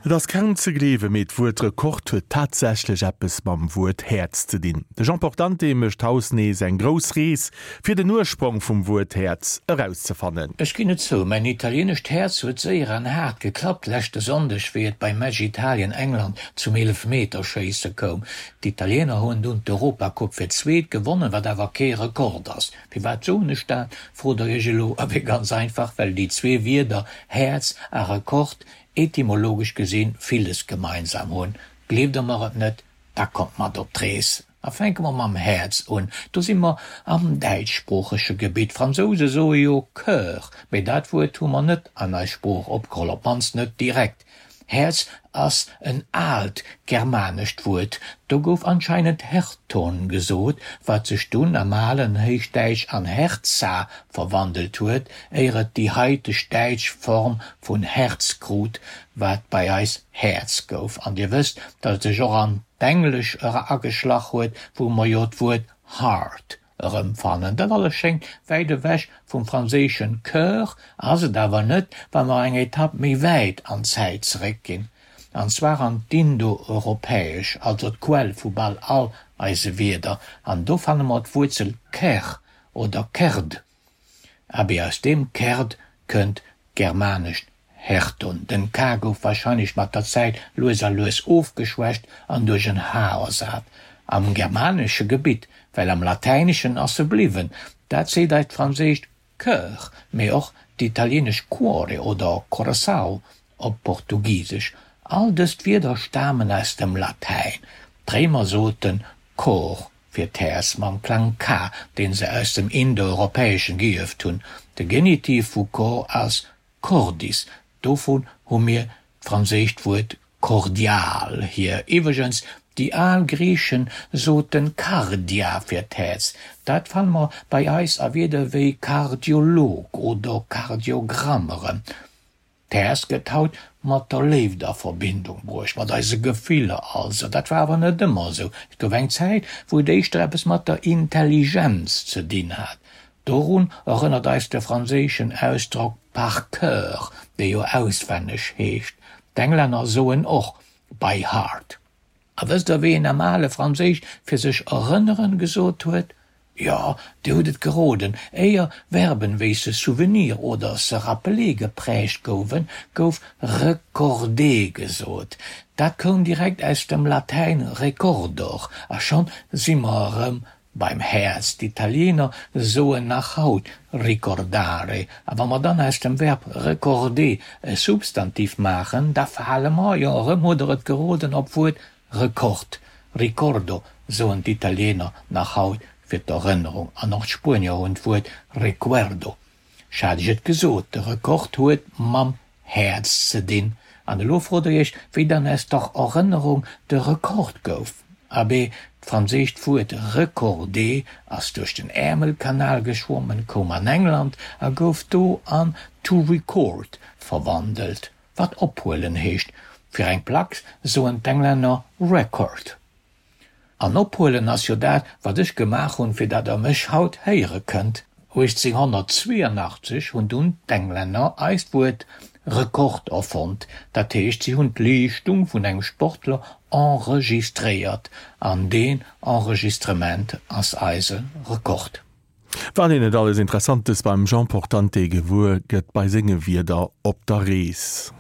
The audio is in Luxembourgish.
Et ass kaum ze gleewen, mee d'Wuert Rekord huet tatsächlech eppes mam Wuert Häerz ze dinn. De Jean Portante mécht haus nees eng grouss Rees, fir den Ursprong vum Wuert Häerz erauszefannen. Ech ginn et zou, mäin italienescht Häerz huet séier an haart geklappt leschte Sonndeg, wéi et beim Match Italien-England zum Eelefmeterschéisse koum. D'Italiener hunn dunn d'Europacup fir d'zweet gewonnen, wat awer kee Rekord ass. Firwat soen ech dat, frot der iech elo? Abee ganz einfach, well déi zwee Wierder Häerz a Rekord etymologesch gesinn villes gemeinsam hunn. Gleeft der mer et net, da kommt mat op d'Rees. A fänke mer mam Häerz un. Do si mer am däitschsproochege Gebitt. D'Fransouse soe jo Coeur, mee dat Wuert hu mer net an eis Sprooch opgeholl, op d'mannst net direkt. Häerz ass en aalt germanescht Wuert. Do gouf anscheinend Herton gesot, wat sech dunn am alen Héichdäitsch an Herza verwandelt huet, éier et déi haiteg däitsch Form vun Herz krut, wat bei eis Häerz gouf. An Dir wësst, datt et sech och an d'Englesch era ageschlach huet, wou mer jo d'Wuert heart erëmfannen. Dat alles schéngt wäit ewech vum franséischen Coeur, ass et awer net, wa mer eng Etapp méi wäit an d'Zäit zeréckginn, an zwar an d'Indoeuropäesch, also d'Quell vu bal all eise Wierder, an do fanne mer d'Wuerzel ker oder kerd. Abee, aus deem kerd kënnt d'germanescht Herton. Den K gouf warscheinlech mat der Zäit lues a lues ofgeschwächt an duerch en H ersat. Am germanesche Gebitt, well am Latäineschen ass e bliwwen. Dat seet eis d'franséischt Coeur, mee och d'italienesch Cuore oder Coração op Portugisesch. All dëst Wierder stamen aus dem Latäin. D'Réimer soten Cor fir d'Häerz mam Klang K, deen se aus dem Indoeuropäeschen geierft hunn. De Genitiv vu cor ass cordis, dovun hu mir d'franséischt Wuert cordial hier. Iwwregens, déi al Griichen soten kardia fir d'Häerz. Dat fanne mer bei eis a Wierder wéi Kardiolog oder Kardiogramm erëm. D'Häerz gëtt haut mat der Léift a Verbindung bruecht, mat eise Gefiller also. Dat war awer net ëmmer esou. Et gouf eng Zäit, wou et éischter eppes mat der Intelligenz ze dinn hat. Dorun erënnert eis de franséischen Ausdrock par cœur, dee jo auswenneg heescht. D'Englänner soen och by heart. A wësst der, wéi een am ale Franséisch fir sech erënneren gesot huet? Jo, dir hutt et geroden, éier Verben wéi se souvenir oder se rappeler geprägt gouwen, gouf recorder gesot. Dat koum direkt aus dem Latäin recordor, a schonn si mer erëm beim Häerz. D'Italiener soen nach haut ricordare. A wa mer dann aus dem Verb recorder e Substantiv maachen, da fale mer, jo, erëm hutt der et geroden, op d'Wuert Rekord, ricordo soen d'Italiener nach haut fir d'Erënnerung an och d'Spuenier hunn d'Wuert recuerdo. Ech hat iech et gesot, de Rekord huet mam Häerz ze dinn. An elo frot der iech, wéi dann aus der Erënnerung de Rekord gouf. Abee, d'franséischt Wuert recorder ass duerch den Äermelkanal geschwommen, koum an England a gouf do an to record verwandelt. Wat ophuelen heescht. Fir eng Plack soen d'Englänner record. An ophuelen ass jo dat, wat ech gemaach hunn, fir dat der mech haut héiere kënnt. 1882 hunn dunn d'Englänner eist Wuert Rekord erfonnt, dat heescht, si hunn d'Leeschtung vun engem Sportler enregistréiert, an deen Enregistrement ass eise Rekord. Wat een net alles Interessantes beim Jean Portante gewuer gëtt bei senge Wierder op der Rees.